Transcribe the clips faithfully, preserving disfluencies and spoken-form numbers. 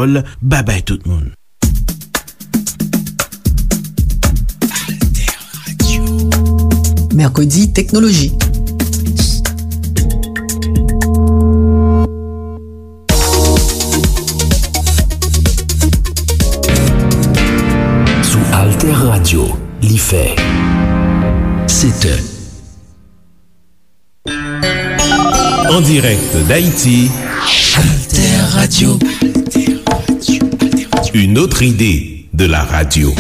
Kreyòl. Babay tout moun. Mèkredi Teknoloji. Sou Alter Radio, li fè sèt è. En direct d'Haïti, Alter Radio. Une autre idée de la radio.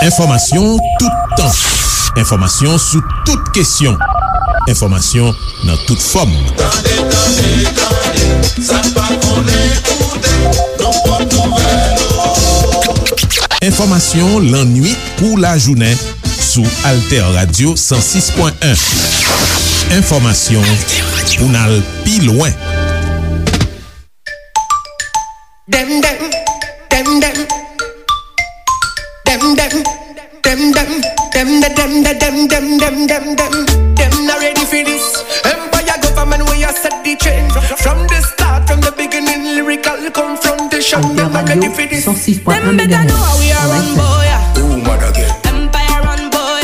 Enfòmasyon toutan. Enfòmasyon sou tout kesyon. Enfòmasyon nan tout fòm. Tande, tande, tande, sa n pa konnen koute, nou pot nouvèl. Enfòmasyon lannwit kou lajounen sou Alter Radio san sis pwen en. Enfòmasyon pou n al pi lwen. Dem, dem, dem, dem. Dem, dem, dem, dem. Dem, de, dem, de, dem, dem, dem, dem, dem. Dem not ready for this. Empire government, we a set the trend. From the start, from the beginning, lyrical confrontation. Dem not ready for this. Dem better know how we a run, boy. Who mad again? Empire run, boy.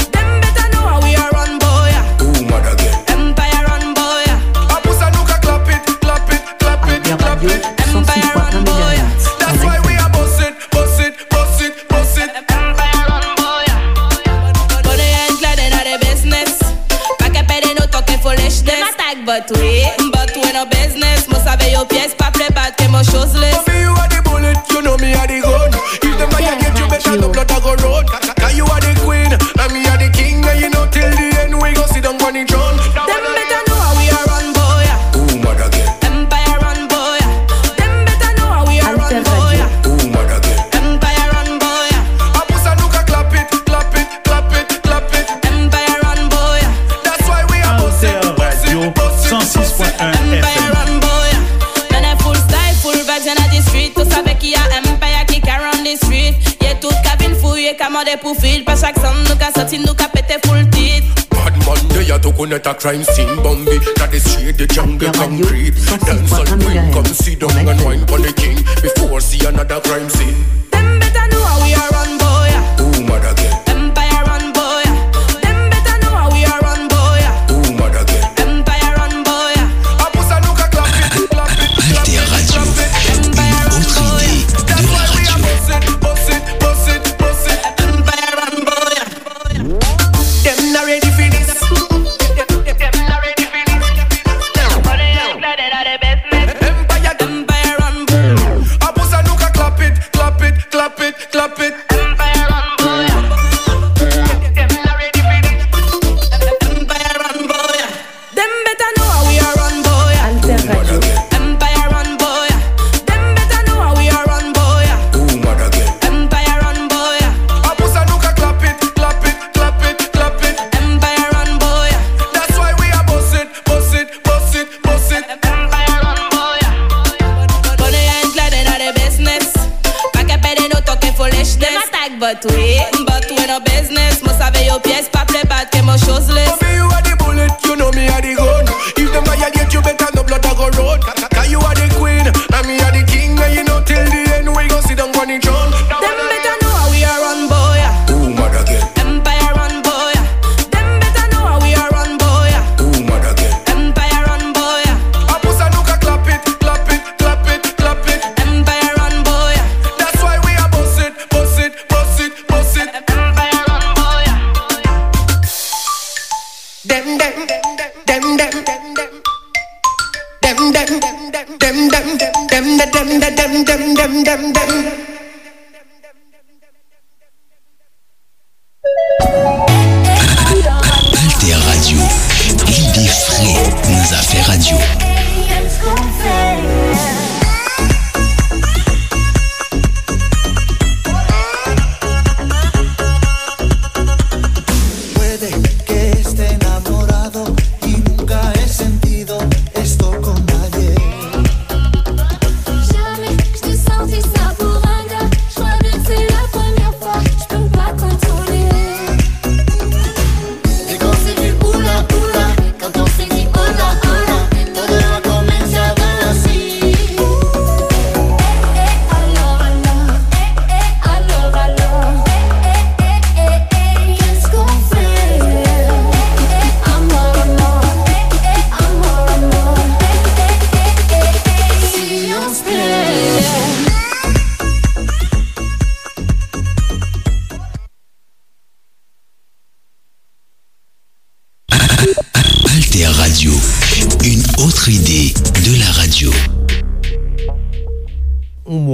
Dem better know how we a run, boy. Who mad again? Empire run, boy. A pou sa nou ka clap it, clap it, clap it, clap it. Empire run, boy. That's why we a boss it, boss it, boss it, boss it. Empire run, boy. Bonè an klè, dem not the business. Pa ke pede nou talking foolishness. Dem attack, but we, but we no business. Mo save yo pyès, pa plè bat ke mo shoes list. For me, you are the bullet, you know me are the gun. If dem violate you, better no blood a go run. Cause you are the queen, and me are the king, and you know till the end we go sit down on the throne. Dem better know how we a run, boy. Who mad again? Empire run, boy. Dem better know how we a run, boy. Who mad again? Empire run, boy. A pou sa nou ka clap it, clap it, clap it, clap it. Empire run, boy. That's why we a boss it, boss it, boss it, boss it. Empire run, boy. Mennen full style, full vibes inna the street. Ou save ki a Empire ki ka run the street. Ye tout ka vin fou, ye ka mande pou feat. Pa chak sèn nou ka sòti, nou ka pete full tit. Bad man, dey a tou konnen a crime scene. Bombi, ta deswiye de jungle concrete. Dancehall queen, come sit down and wine pon the king. Before see another crime scene. Dem better know how we a run, boy. Who mad again? Empire run, boy. Dem better know how we a run, boy. Who mad again? Empire run, boy. A pou sa nou ka clap it, clap it, clap it, clap it. Alter Radio, une autre idée de la radio. Dem not ready for this. Dem not ready for this. Empire, Empire run. A pou sa nou ka clap it, clap it, clap it, clap it. Empire run, boy. Dem not ready for this. Empire run, boy. Dem better know how we a run, boy. Alter Radio. Empire run, boy. Dem better know how we a run, boy. Who mad again? Empire run, boy. A pou sa nou ka clap it, clap it, clap it, clap it. Empire run, boy. That's why we a boss it, boss it, boss it, boss it. Empire run, boy. Bonè an klè, dem not the business. Pa ke pede nou talking foolishness. Dem attack, but we, but we no business. Mo save yo pyès, pa plè bat ke mo shoes list. For me, you are the bullet, you know me are the gun. If dem violate you, better no blood a go run. Cause you are the queen, and me are the king, and you know till the end we go sit down on the throne. Dem better know how we a run, boy. Who mad again? Empire run, boy. Dem better know how we a run, boy. Who mad again? Empire run, boy. A pou sa nou ka clap it, clap it, clap it, clap it. Empire run, boy. That's why we a boss it, boss it, boss it, boss it. Empire run, boy. Dem, dem, dem, dem. Dem, dem, dem, dem, dem, dem, dem, dem, dem, dem, dem, dem, dem, dem. Alter Radio, lide fre nan zafè radyo. Puede que esté enamorado y nunca he sentido esto con nadie. Jamais je t'ai senti ça pour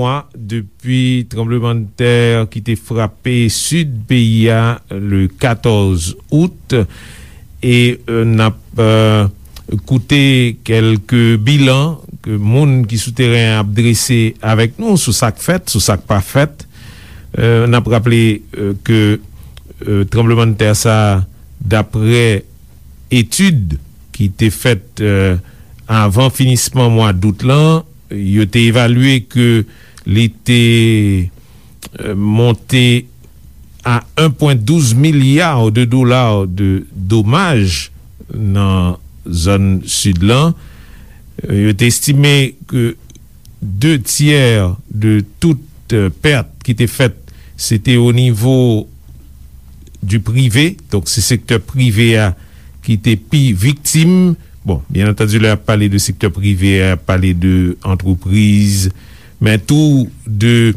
mwa depi tranblemanntè ki te frape sid peyi a le katòz out, e, e, n ap, e, koute kèlke bilan ke moun ki sou teren an ap drese avèk nou sou sa k fèt, sou sa k pa fèt. E, n ap raple, e, ke, e, tranblemanntè sa, daprè etid ki te fèt, e, avan finisman mwa dout lan, yo te evalye ke li te, e, monte a en pwen douz milya de dola de domaj nan zòn sid lan. E, yo te estime ke de tyè de tout, e, pèt ki te fèt, se te o nivo du prive, donk se sektè prive a ki te pi viktim. Bon, byen antandi, lè y ap pale de sektè prive a, y ap pale de antrepriz, men tou de,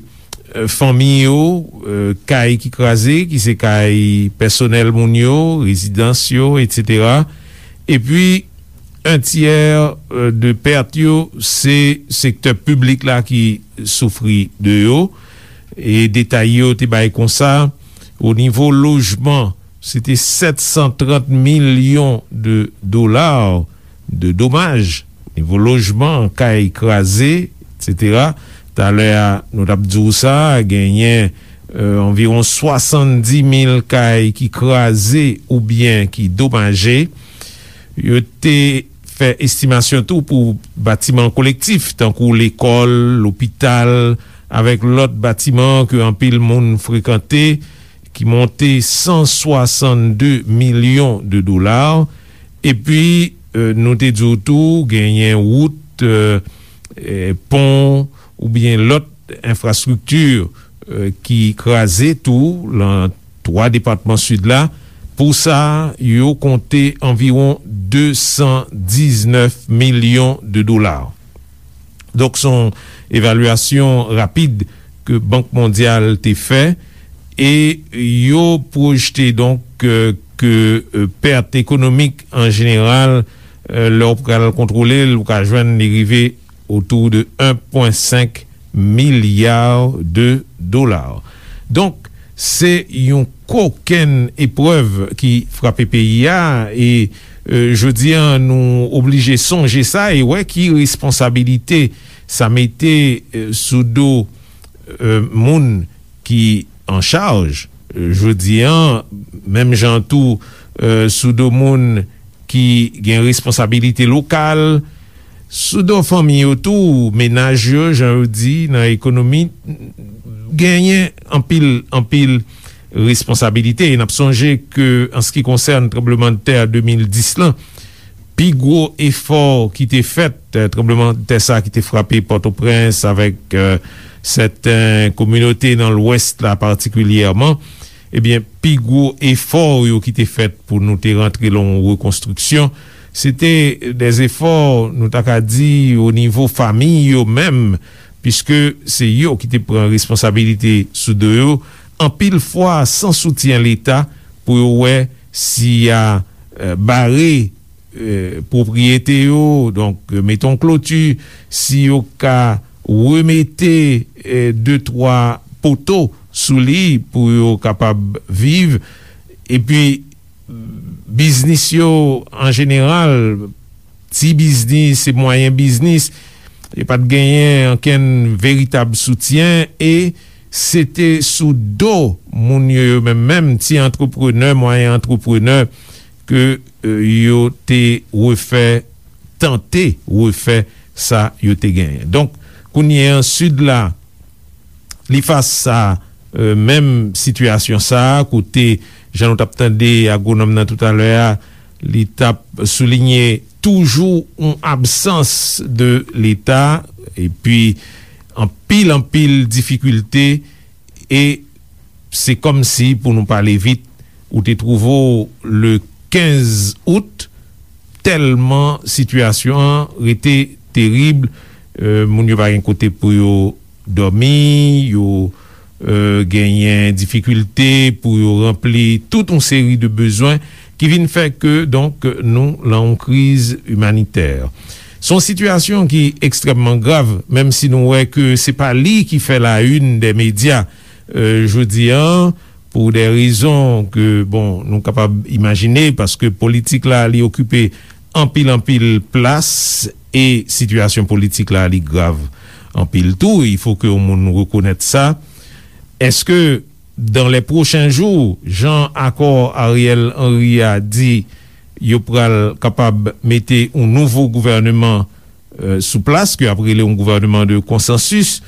e, fanmi yo, e, kay ki kraze, ki se kay pèsonèl moun yo, rezidans yo, etsetera. Epi, en tyè, e, de pèt yo, se sektè piblik la ki soufri de yo. E detay yo te bay konsa, o nivo lojman, se te sèt san trant milyon de dola de domaj, nivo lojman, kay kraze, etsetera. Talè a, nou t ap di w sa, genyen, e, anviwon swasanndis mil kay ki kraze oubyen ki domaje. Yo te fè estimasyon tou pou batiman kolektif, tankou lekòl, lopital, avèk lòt batiman ke anpil moun frekante, ki monte san swasann de milyon de dola. Epi, e, nou te di w tou, genyen wout, e, e, pon oubyen lòt enfrastrikti, e, ki kraze tou lan twa depatman sid la. Pou sa, yo konte anviwon de san diznèf milyon de dola. Donk, se yon evalyasyon rapid ke Bank Mondyal te fè, e yo pwojte, donk, e, ke, e, pèt ekonomik an jeneral, e, lè w pral kontwole l, ou ka jwenn li rive otou de en pwen senk milya de dola. Donk, se yon kokenn eprèv ki frape peyi a, e, e, jodi a, nou oblije sonje sa e wè ki responsabilite sa mete, e, sou do, e, moun ki an chaj. E, jodi a, menm jan tou, e, sou do moun ki gen responsabilite lokal, sou do fanmi yo tou, menaj yo, jan yo di, nan ekonomi, genyen anpil, anpil responsabilite. E n ap sonje ke, an se ki konsène tranblemanntè de mil dis lan, pi gwo efò ki te fèt, e, tranblemanntè sa ki te frape Pòtoprens avèk, e, sèten kominote nan Lwès la patikilyèman, ebyen, pi gwo efò yo ki te fèt pou nou te rantre lan yon rekonstriksyon, se te de efò, nou ta ka di, o nivo fanmi yo menm, piske se yo ki te pran responsabilite sou do yo, anpil fwa san soutyen Leta pou yo wè si y a, e, bare, e, pwopriyete yo, donk, e, mete yon kloti, si yo ka remete, e, de, twa poto sou li pou yo kapab viv. Epi, biznis yo, an jeneral, ti biznis e mwayen biznis, yo pa t genyen ankenn veritab soutyen, e se te sou do moun yo, yo menm menm, ti antreprenè, mwayen antreprenè, ke, e, yo te refè, tante refè sa yo te genyen. Donk, kounye a, Sid la, li fas a, e, menm sitiyasyon sa a, kote, jan nou t ap tande agwonòm nan toutalè a, li t ap soulinye toujou yon absans de Leta, epi anpil, anpil difikilte, e se kòmsi, pou nou pale vit, ou te twouve w le kenz out, tèlman sitiyasyon an rete terib, e, moun yo pa gen kote pou yo dòmi, yo, e, genyen difikilte pou yo ranpli tout yon seri de bezwen ki vin fè ke, donk, nou lan yon kriz imanitè. Se yon sitiyasyon ki ekstrèmman grav, menm si nou wè ke se pa li ki fè la une dè medya, euh, jodi a, pou dè rezon ke, bon, nou kapab imajine, paske politik la, li okipe anpil, anpil plas, e sitiyasyon politik la, li grav anpil tou. Il faut que yon moun rekonèt sa. Èske, dans les prochains jours, jan akò Ariel Henry a di, yo pral kapab mete yon nouvo gouvèneman, euh, sou plas, ke ap rele yon gouvèneman de konsansis,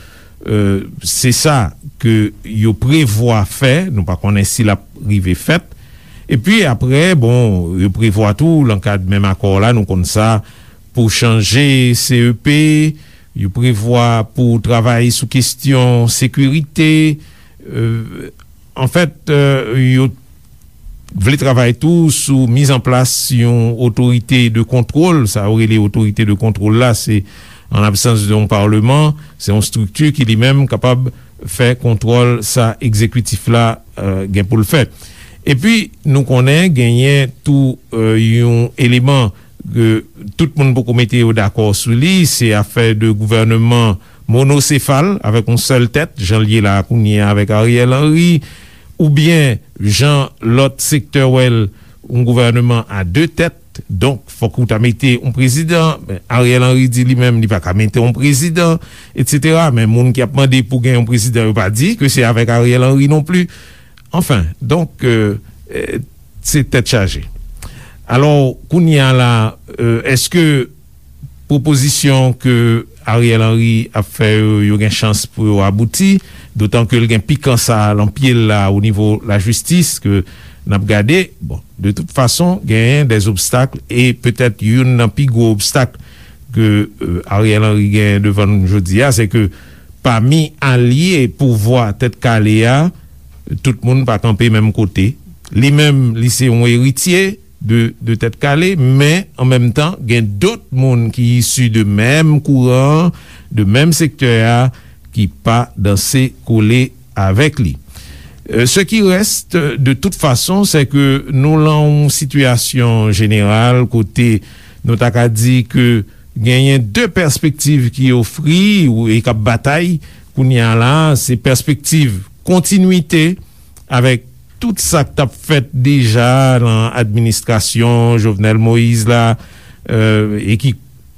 euh, se sa ke yo prevwa fè, nou pa konnen si l ap rive fèt. Epi apre, bon, yo prevwa tou, nan kad menm akò la, nou konn sa, pou chanje C E P, yo prevwa pou travay sou kesyon sekirite, euh, anfèt, euh, yo vle travay tou sou mizanplas yon otorite de kontwòl. Sa yo rele otorite de kontwòl la, se an absans de yon palman, se yon estrikti ki li menm kapab fè kontwòl sa egzekitif la, euh, gen pou l fè. Epi, nou konnen genyen tou, euh, yon eleman ke tout moun poko mete yo dakò sou li, se afè de gouvèneman monosefal, avèk yon sèl tèt, jan l ye la kounye a avèk Ariel Henry, oubyen jan lòt sektè wè l, yon gouvèneman a de tèt. Donk, fòk ou ta mete yon prezidan. Men Ariel Henry di li menm, li pa ka mete yon prezidan, etsetera. Men moun ki ap mande pou gen yon prezidan, yo pa di ke se avèk Ariel Henry non pli. Anfen, donk, euh, euh, se tèt chaje. Alò, kounye a la, euh, èske pwopozisyon ke Ariel Henry ap fè yo, yo gen chans pou yo abouti, dotan ke l gen pikan sa a lan pye l la o nivo lajistis ke n ap gade. Bon, de tout fason, genyen dè obstak, e petèt youn nan pi gwo obstak ke, euh, Ariel Henry genyen devan nou jodi a, se ke pami alye pouvwa Tèt Kale a, tout moun pa kanpe menm kote. Li menm, li se yon eritye de, de Tèt Kale, men an menm tan, gen dòt moun ki isi de menm kouran, de menm sektè a, ki pa danse kole avèk li. Euh, ce qui reste, de toute façon, c'est que nou lan yon sitiyasyon jeneral kote nou ta ka di ke genyen de pèspektiv ki ofri ou, e k ap batay kounye a la, se pèspektiv kontinwite avèk tout sa k t ap fèt deja nan administrasyon Jovenel Moïse la, euh, e ki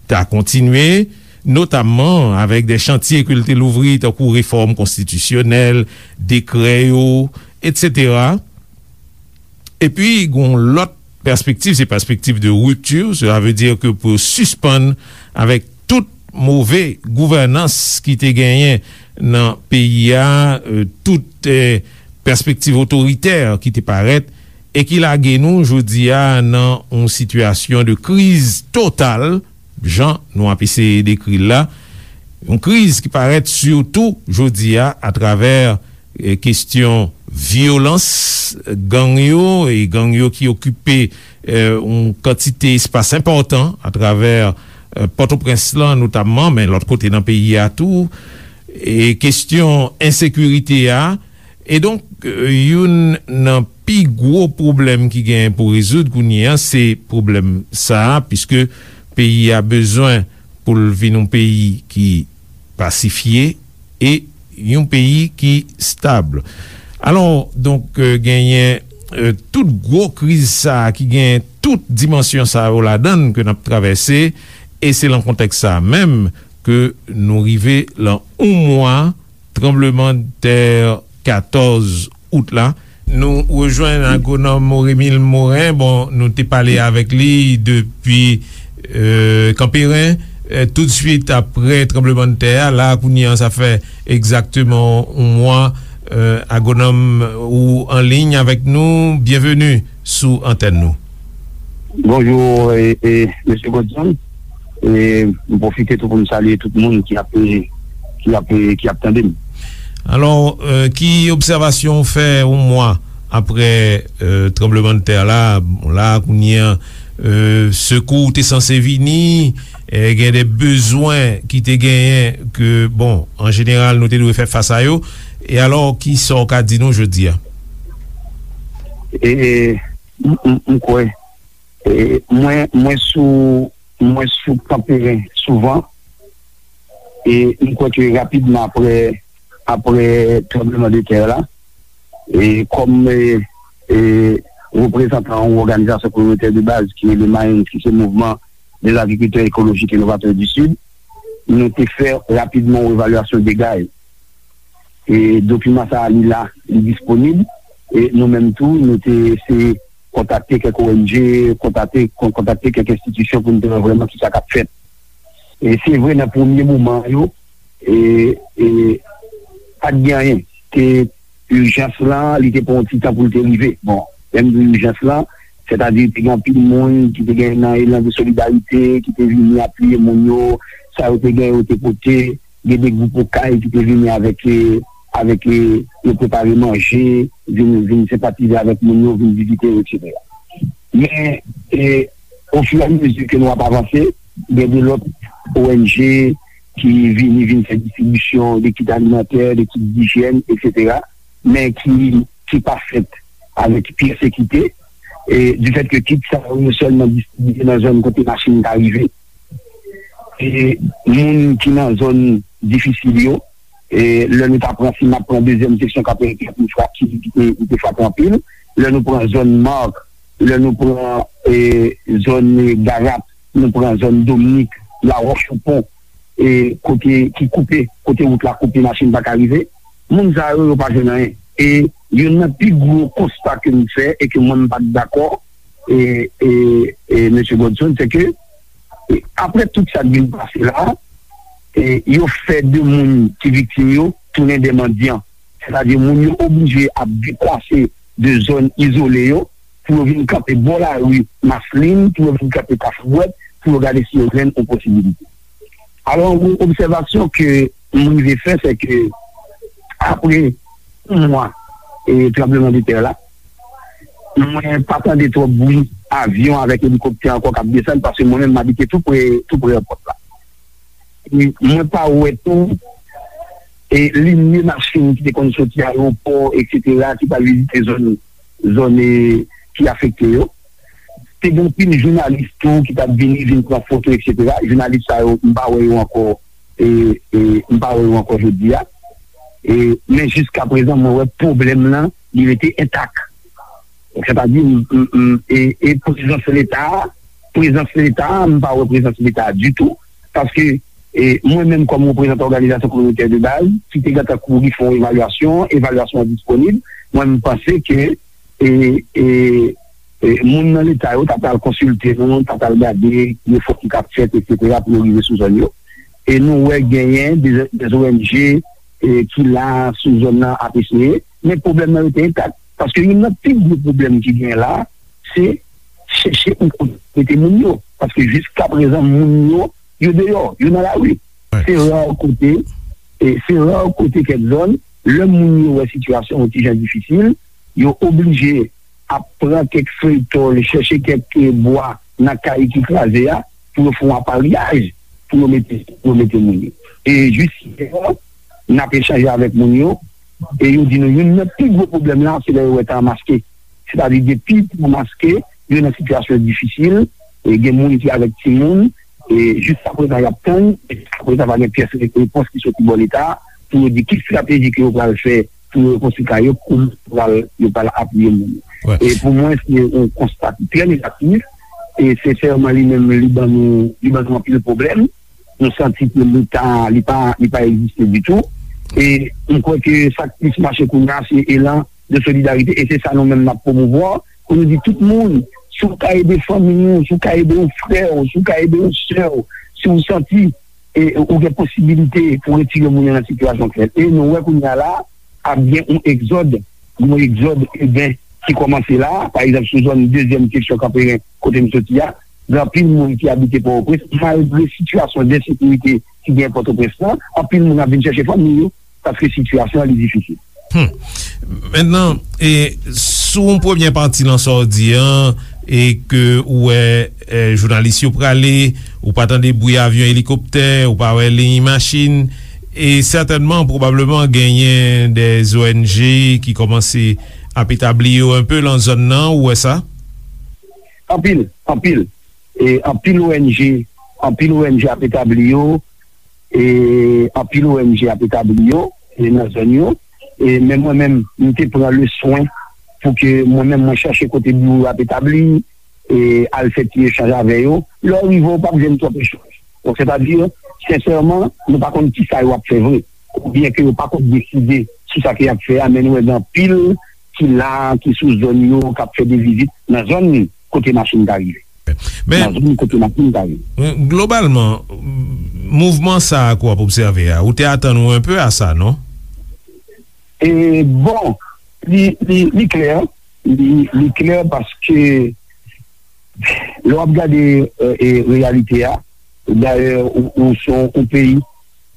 ta kontinye, notamman avèk de chantye ke l te louvri, tankou refòm konstitisyonèl, dekrè yo, etsetera. Epi, gen yon lòt pèspektiv, se pèspektiv de ripti, sela vle di ke pou yo sispann avèk tout move gouvènans ki te genyen nan peyi a, euh, tout, euh, pèspektiv otoritè ki te parèt e ki lage nou jodi a nan yon sitiyasyon de kriz total, jan nou ap eseye dekri l la. Yon kriz ki parèt sitou jodi a atravè, eh, kesyon vyolans gang yo, e gang yo ki okipe, eh, yon kantite espas enpòtan atravè, eh, Pòtoprens lan notamman, men lòt kote nan peyi a tou. E kesyon ensekirite a, e donk, euh, youn nan pi gwo pwoblèm ki genyen pou rezoud kounye a, se pwoblèm sa a, piske peyi a bezwen pou l vin yon peyi ki pasifye e yon peyi ki stab. Alò, donk, euh, genyen, euh, tout gwo kriz sa a ki genyen tout dimansyon sa yo ladan l ke n ap travèse, e se lan kontèks sa a menm ke nou rive lan yon mwa tranblemanntè katòz out la. Nou rejwenn agwonòm Oremil Morin. Bon, nou te pale avèk li depi, euh, Kanperen, euh, toutswit aprè tranblemanntè a. La, kounye a, sa fè egzakteman yon mwa. Euh, agwonòm, ou an liy avèk nou. Byenveni sou antèn nou. Bonjou, e, e, mesye Godson. E m pwofite tou pou m salye tout moun ki ap, ki ap, ki ap tande m. Alò, euh, ki obsèvasyon w fè yon mwa aprè, euh, tranblemanntè la? Bon, la, kounye a, euh, sekou te sanse vini, e gen de bezwen ki te genyen ke, bon, an jeneral, nou te dwe fè fas a yo. E alò, ki sa w ka di nou jodi a? E, e, m, m, m kwè, e, mwen, mwen sou mwen sou Kanperen souvan, e m kwè ke rapidman apre, apre tranbleman de tè la, e kòm, e, e, reprezantan yon òganizasyon kominotè de baz ki rele MAENS, ki se Mouvman des Agriculteurs Écologiques et Novateurs du Sud, nou te fè rapidman yon evalyasyon dega yo. E dokiman sa a, li la, li disponib. E nou menm tou, nou te eseye kontakte kèk O N G, kontakte, kon-, kontakte kèk enstitisyon pou n te wè vrèman kisa k ap fèt. E se vre, nan premye moman yo, e, e, pa t gen anyen. Te, ijans lan, li te pran yon ti tan pou l te rive. Bon, lè m di ijans lan, sètadi te gen anpil moun ki te gen nan elan de solidarite, ki te vini apiye moun yo, sa yo te gen, yo te pote, gen de gwoup okay ki te vini avèk, e, avèk, e, yo prepare manje, vin, vin senpatize avèk moun yo, vin vizite yo, etsetera. Men, e, ofiramezi ke nou ap avanse, gen de lòt O N G ki vini, vin fè distribisyon de kit alimantè, de kit dijyèn, etsetera, men ki, ki pa fèt avèk pyès ekite, e, difèt ke kit sa yo sèlman distribiye nan zòn kote machin ka rive. E moun ki nan zòn difisil yo, e lè nou ta pran, si n ap pran dezyèm seksyon Kanperen ki, ki, ki te, ki te frape anpil, lè nou pran zòn Mark, lè nou pran, e, zòn, e, Garap, nou pran zòn Dominik, Lawòch Oupon, e, kote ki koupe, kote wout la koupe, machin pa ka rive, moun sa yo, yo pa jwenn anyen. E youn nan pi gwo konsta ke m fè e ke mwen m pa t dakò, e, e, e, mesye Godson, se ke, e, apre tout sa k vin pase la, e, yo fè de moun ki viktim yo tounen de mandyan. Sètadi, moun yo oblije ap deplase de zòn izole yo pou yo vin kanpe bò lari Maslin, pou yo vin kanpe Kafou Bwèt, pou yo gade si yo jwenn yon posibilite. Alò, yon obsèvasyon ke m rive fè, se ke apre yon mwa, e, tranbleman de tè la, mwen pa tande twòp bri avyon avèk elikoptè ankò k ap desann, paske mwen menm, m abite tou pre, tou pre èpòt la. E mwen pa wè tou, e, linye machin ki te konn soti ayewopò, etsetera, ki pral vizite zòn, zòn, e, ki afekte yo. Te gen anpil jounalis tou ki t ap vini, vin pran foto, etsetera. Jounalis sa yo, m pa wè yo ankò, e, e, m pa wè yo ankò jodi a. E, men jiska prezan, mwen wè pwoblèm lan, li rete entak. Sètadi, m, m, m, e, e prezans Leta a, prezans Leta a, m pa wè prezans Leta a ditou, paske, e, mwen menm kòm reprezantan òganizasyon kominotè de baz, ki te gentan kouri fè yon evalyasyon, evalyasyon an disponib, mwen m panse ke, e, e, e, moun nan Leta yo ta pral konsilte nou, ta pral gade efò ki t ap fèt, etsetera, pou yo rive sou zòn yo. E nou wè genyen de, de O N G, e, ki la sou zòn nan ap eseye, men pwoblèm nan rete entak. Paske youn nan pi gwo pwoblèm ki genyen la, se chèche yon kote mete moun yo. Paske jiska prezan, moun yo, yo deyò, yo nan lari. Se ra kote, e se ra kote kèk zòn, lè moun yo wè sitiyasyon yon ti jan difisil, yo oblije ap pran kèk fèy tòl, chèche kèk, e, bwa nan kay ki kraze a, pou yo fè yon aparyaj, pou yo mete, pou yo mete moun yo. E jis yè, n ap echanje avèk moun yo, e yo di nou youn nan pi gwo pwoblèm la, se lè yo wè tan an maske. Sètadi depi tan an maske, yo nan sitiyasyon difisil, e gen moun ki avèk timoun, e jiska prezan y ap tann, e jiska prezan pa gen pyès re-, repons ki soti bò Leta a, pou yo di ki estrateji ke yo pral fè pou yo rekonstwi kay yo, kòman yo pral, yo pral apiye moun yo. E pou mwen, se yon konsta ki trè negatif, e sensèman, li menm, li ban nou, li ban nou anpil pwoblèm. Nou santi ke Leta, li pa, li pa egziste ditou. E m kwè ke sa k plis mache kounye a, se elan de solidarite, e se sa nou menm n ap pwomouvwa, pou nou di tout moun, si w ka ede fanmi w, si w ka ede yon frè w, si w ka ede yon sè w, si w santi, e, ou gen posibilite pou retire moun yo nan sitiyasyon k fèt. E nou wè kounye a la, ap gen yon egzòd, yon egzòd iben ki kòmanse la, pa egzanp, sou zòn dezyèm seksyon Kanperen, kote m soti a, gen anpil moun ki abite Pòtoprens, malgre sitiyasyon de ensekirite ki gen Pòtoprens lan, anpil moun ap vin chèche fanmi yo, paske sitiyasyon an li difisil. Hmm. Mentnan, e, sou yon premyè pati nan sa w di an, e ke ou wè, e, jounalis yo prale, ou pa tande bri avyon, elikoptè, ou pa wè liy machin, e sètènman, pwobableman, genyen de O N G ki kòmanse ap etabli yo enpe lan zòn nan, ou wè sa? Anpil, anpil. e, anpil O N G, anpil O N G ap etabli yo, e, anpil O N G ap etabli yo, e, nan zòn yo. E, men mwen menm, m te pran le swen pou ke mwen menm, mwen chache kote biwo yo ap etabli, e, al fè ti echanj avè yo. Lè w rive, w p ap jwenn twòp echanj. Donk, sètadi, sensèman, nou pa konn kisa yo ap fè vre. Oubyen ke yo pa konn deside sou sa ke y ap fè a, men nou wè gen anpil ki la, ki sou zòn yo, k ap fè de vizit nan zòn kote machin ta rive. Men, nan zòn kote machin ta rive. Globalman, mouvman sa a ke w ap obsève a, ou te atann ou enpe a sa, non? E, bon, li, li, li klè, li, li klè paske lè w ap gade, e, e, reyalite a, dayè, ou, ou se yon, yon peyi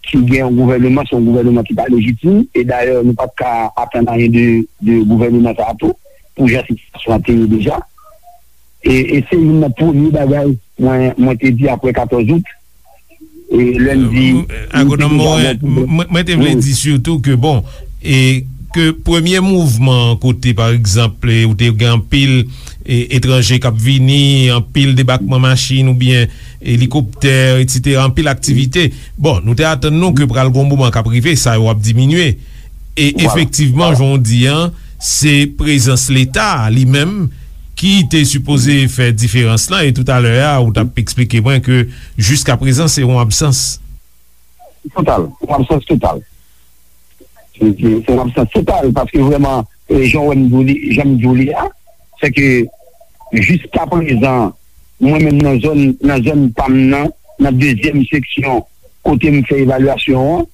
ki gen yon gouvèneman, se yon gouvèneman ki pa lejitim, e dayè, nou pa t ka atann anyen de, de gouvèneman sa a tou, pou jan sitiyasyon an te ye deja. E, e se youn nan premye bagay mwen, mwen te di apre katòz out, e lè n di, Agwonòm Moren, mwen, mwen te vle di sitou ke, bon, e ke premye mouvman kote, pa egzanp, e, ou te gen anpil, e, etranje k ap vini, anpil debakman machin oubyen elikoptè, etsetera, anpil aktivite. Bon, nou te atann nou ke pral gen yon moman k ap rive, sa yo ap diminye. E efektivman, jan w di an, se prezans Leta a li menm ki te sipoze fè diferans lan, e toutalè a, ou t ap eksplike mwen ke jiskaprezan, se yon absans. Total, yon absans total. Se, se, se yon absans total, paske vrèman, e, jan w wè m di w li, jan m di w li a, se ke jiskaprezan, mwen menm nan zòn, nan zòn pa m nan, nan dezyèm seksyon kote m fè evalyasyon an,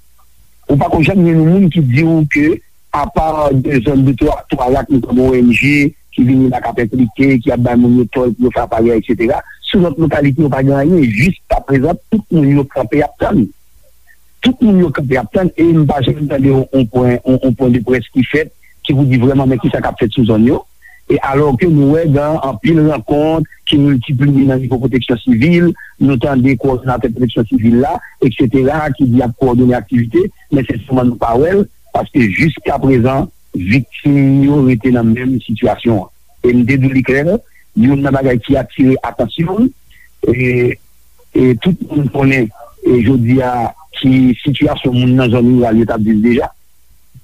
ou pa ko janm jwenn yon moun ki di w ke apa de zòn de twa, twa rak, nou konn O N G ki vini la k ap enplike, ki ap bay moun yo tòl pou yo fè aparèy, etsetera. Sou lòt lokalite yo pa gen anyen. Jiskaprezan, tout moun yo kanpe ap tann. Tout moun yo kanpe ap tann, e m pa janm tande yon, yon pwen, yon, yon pwen de près ki fèt, ki pou di vrèman men kisa k ap fèt sou zòn yo. E alò ke nou wè gen anpil rankont ki miltipliye nan nivo pwoteksyon sivil, nou tande kowòdinatè pwoteksyon sivil la, etsetera, ki di y ap kowòdone aktivite, men sensèman nou pa wè l, paske jiskaprezan, viktim yo rete nan menm sitiyasyon an. E m te di w li klè, youn nan bagay ki atire atansyon m, e, e tout moun konnen, e jodi a, ki sitiyasyon moun nan zòn riral yo t ap viv deja.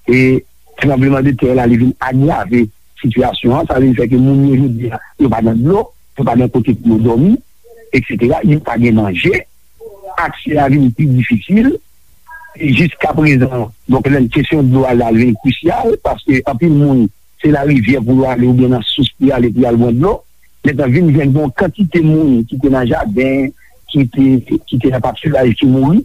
E tranblemanntè la, li vin agrave sitiyasyon an. Sa vin fè ke moun yo jodi a, yo pa gen dlo, yo pa gen kote pou yo dòmi, etsetera. Yo pa gen manje, aksè a vin pi difisil. E jiskaprezan, donk, lè kesyon dlo a la vin krisyal, paske anpil moun, se larivyè pou yo ale oubyen nan sous pou y ale pou y al bwè dlo. Mentnan, vin jwenn gen yon kantite moun ki te nan jaden, ki te, ki te nan patiraj ki mouri.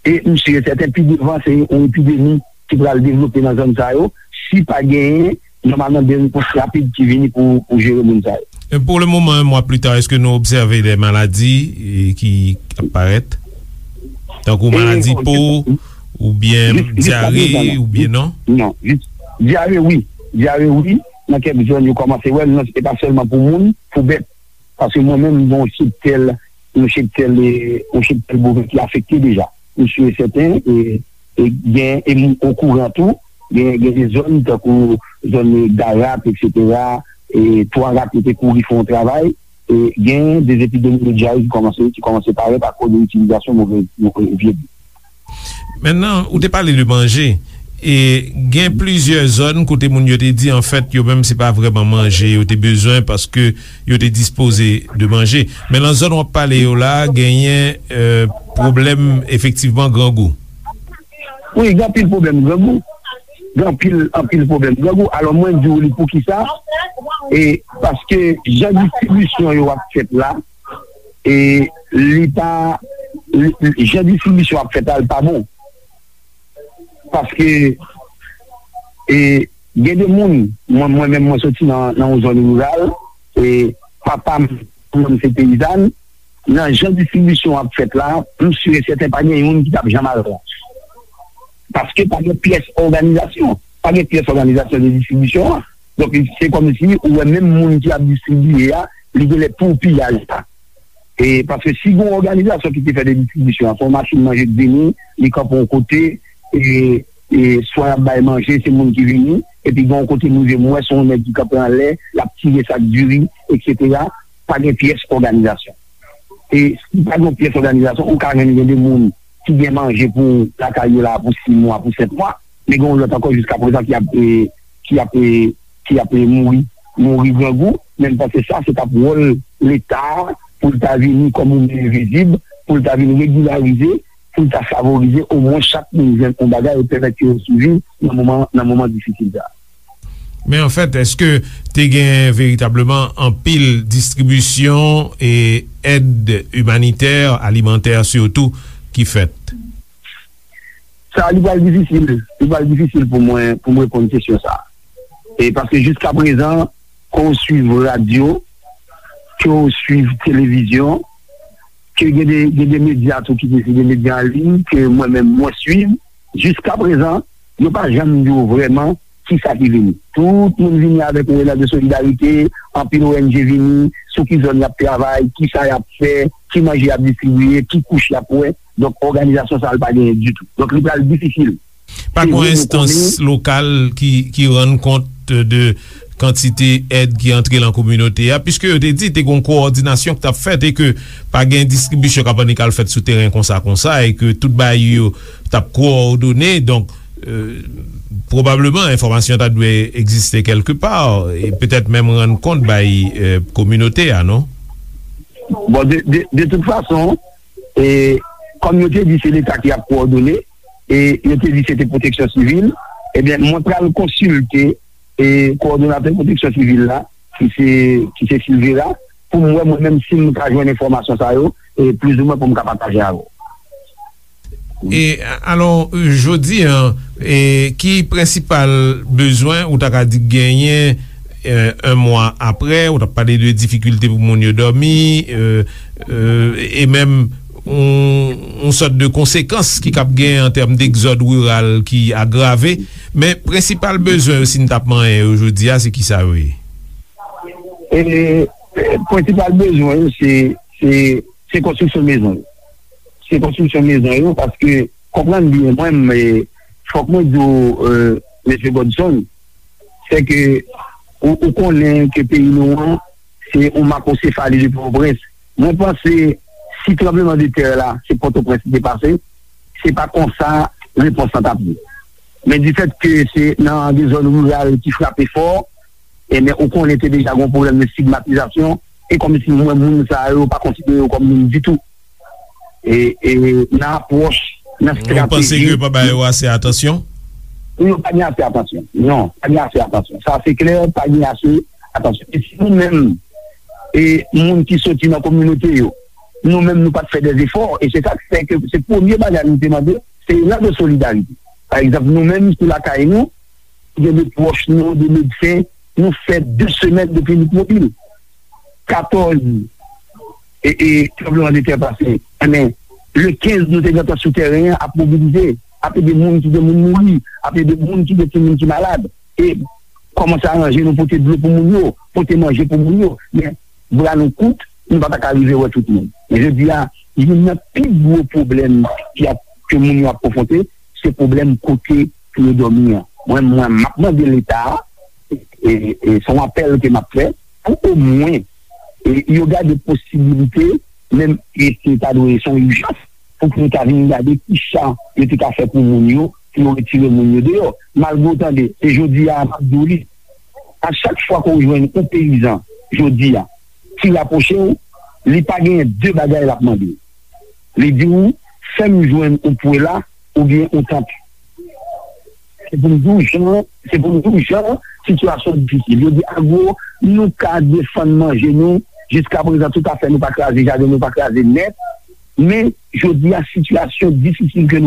E m si e sèten, pi devan, se yon epidemi ki pral devlope nan zòn sa yo, si pa genyen, nòmalman, de repons rapid ki vini pou, pou jere moun sa yo. E pou le moman, un mois plus tard, èske nou obsève de maladi, e, ki ap parèt? Tankou maladi po, oubyen dyare, oubyen non? Non, jis dyare, wi. Dyare, wi. Nan kèk zòn, yo kòmanse wè l, non, se pa sèlman pou moun, pou bèt. Paske mwen menm, m gen yon cheptèl, yon cheptèl, e, yon cheptèl boven ki afekte deja. M si e sèten, e, e gen, e m okouran tou, gen, gen de zòn, tankou zòn Garak, etsetera, e Twa Rak, yo te kouri fè yon travay, e gen de epidemi de dyare ki kòmanse, ki kòmanse parèt akoz de itilizasyon move, move vye dlo. Mentnan, ou te pale de manje. E gen plizyè zòn kote moun yo te di, anfèt, yo menm, se pa vrèman manje yo te bezwen paske yo te dispoze de manje. Men nan zòn w ap pale yo la, genyen, e, pwoblèm efektivman grangou. Wi, gen anpil pwoblèm grangou. Gen anpil, anpil pwoblèm grangou. Alò, mwen di w li poukisa. E paske jan distribisyon yo ap fèt la, e li pa, li, li, jan distribisyon ap fèt la, li pa bon. Paske, e, gen de moun, mwen, mwen menm, mwen soti nan, nan yon zòn riral, e papa m, manman m se peyizàn, nan jan distribisyon ap fèt la, m si e sèten pa gen youn ki t ap janm al pran. Paske pa gen pyès òganizasyon, pa gen pyès òganizasyon de distribisyon an. Donk, se kòmsi ou wè menm moun ki ap distribiye a, li genlè pou piyaj la. E paske si gen yon òganizasyon ki te fè de distribisyon an, se yon machin manje k vini, li kanpe yon kote, e, e swa y ap bay manje, se moun ki vini, epi gen yon kote m rive, m wè se yon nèg ki kanpe anlè, l ap tire sak diri, etsetera. Pa gen pyès òganizasyon. E si pa gen yon pyès òganizasyon, ou ka jwenn gen de moun ki gen manje pou lakay yo la pou sis mwa, pou sèt mwa, men gen yon lòt ankò jiska prezan ki ap, e, ki ap, e, ki ap, e, mouri, mouri grangou. Men m panse sa, se t ap wòl Leta pou l ta vini kòm yon men envizib, pou l ta vin regilarize, pou l ta favorize omwen chak moun jwenn yon bagay e pèmèt yo siviv nan moman, nan moman difisil sa a. Men anfèt, èske te gen veritableman anpil distribisyon e èd imanitè, alimantè sitou, ki fèt? Sa, li pral difisil. Li pral difisil pou mwen, pou mwen reponn kesyon sa a. E paske jiska prezan, ke w swiv radyo, ke w swiv televizyon, ke gen de, gen de medya tou ki te, se de medya an liy ke mwen menm mwen swiv, jiska prezan, yo pa janm di w vrèman kisa ki vini. Tout moun vini avèk yon elan de solidarite, anpil O N G vini, sou ki zòn y ap travay, kisa y ap fè, ki manje y ap distribiye, ki kouch y ap wè. Donk, òganizasyon sa a, li pa genyen ditou. Donk, li pral difisil. Pa gen yon enstans lokal ki, ki rann kont de kantite èd ki antre nan kominote a, piske yo te di te gen yon kowòdinasyon ki t ap fèt e ke pa gen distribisyon k ap annik al fèt sou teren konsa, konsa, e ke tout bagay yo t ap kowòdone. Donk, e, pwobableman, enfòmasyon ta dwe egziste kèlke pa, e petèt menm rann kont bay, e, kominote a, non? Bon, de, de, de tout fason, e, kòm yo te di se Leta ki ap kowòdone, e yo te di se te pwoteksyon sivil, ebyen, mwen pral konsilte, e, kowòdonatè pwoteksyon sivil la, ki se, ki se Silvera, pou m wè mwen menm si m ka jwenn enfòmasyon sa yo, e, plizoumwen pou m ka pataje avè w. E, alò, jodi a, e, ki prensipal bezwen ou ta ka di genyen, e, yon mwa apre, ou t ap pale de difikilte pou moun yo dòmi, e, e, e menm yon, yon sòt de konsekans ki kab gen an tèm degzòd riral ki agrave. Men prensipal bezwen yo, si n t ap manyen yo jodi a, se kisa yo ye? E, e, prensipal bezwen yo, se, se, se konstriksyon mezon yo. Se konstriksyon mezon yo, paske, konprann byen, mwen, e, fòk mwen di w, e, mesye Godson, se ke ou, ou konnen ke peyi nou an, se yon makosefali de Pòtoprens. Mwen panse, si tranblemanntè la, se Pòtoprens li te pase, se pa konsa repons lan t ap ye. Men difèt ke se nan de zòn riral ki frape fò, ebyen, ou konnen te deja gen yon pwoblèm de estigmatizasyon, e kòmsi mwen, moun sa yo pa konsidere yo kòm moun ditou. E, e nan apwòch, nan estrateji. Ou panse ke yo pa ba yo ase atansyon? Yo pa gen ase atansyon. Non, pa gen ase atansyon. Sa se klè, pa gen ase atansyon. E si nou menm, e moun ki soti nan kominote yo, nou menm nou pa t fè dèzefò, e se sa k fè ke se premye bagay nou te mande, se elan de solidarite. Pa egzanp, nou menm sou lakay nou, gen de pwòch nou, de medsen, nou fè de semèn depi Lipmobil. Katòz e, e tranblemanntè pase. Enben, le kenz, nou te gentan sou tèren an ap mobilize, ap ede moun ki gen moun mouri, ap ede moun ki gen timoun ki malad. E kòmanse aranje nou pote dlo pou moun yo, pote manje pou moun yo. Men, bra nou kout, nou pa ta ka rive wè tout moun. Men jodi a, youn nan pi gwo pwoblèm ki ap, ke moun yo ap konfwonte, se pwoblèm kote pou yo dòmi an. Mwen, mwen, m ap mande Leta a, e, e se yon apèl ke m ap fè, pou omwen, e, yo gade posibilite, menm, e se ta dwe se yon ijans, pou ke yo ta vin gade kisa yo te ka fè pou moun yo, pou yo retire moun yo deyò. Malgre w tande, e jodi a, m ap di w li, a chak fwa ke w jwenn yon peyizan, jodi a, ki rapwoche w, li pa genyen de bagay l ap mande w. Li di w, fè m jwenn yon pwela oubyen yon tant. Se pou m di w jan, se pou m di w jan sitiyasyon difisil. Yo di, Agwo, nou ka defann manje nou, jiska prezan, toutafè, nou pa kraze jaden, nou pa kraze nèt. Men, jodi a, sitiyasyon difisil ke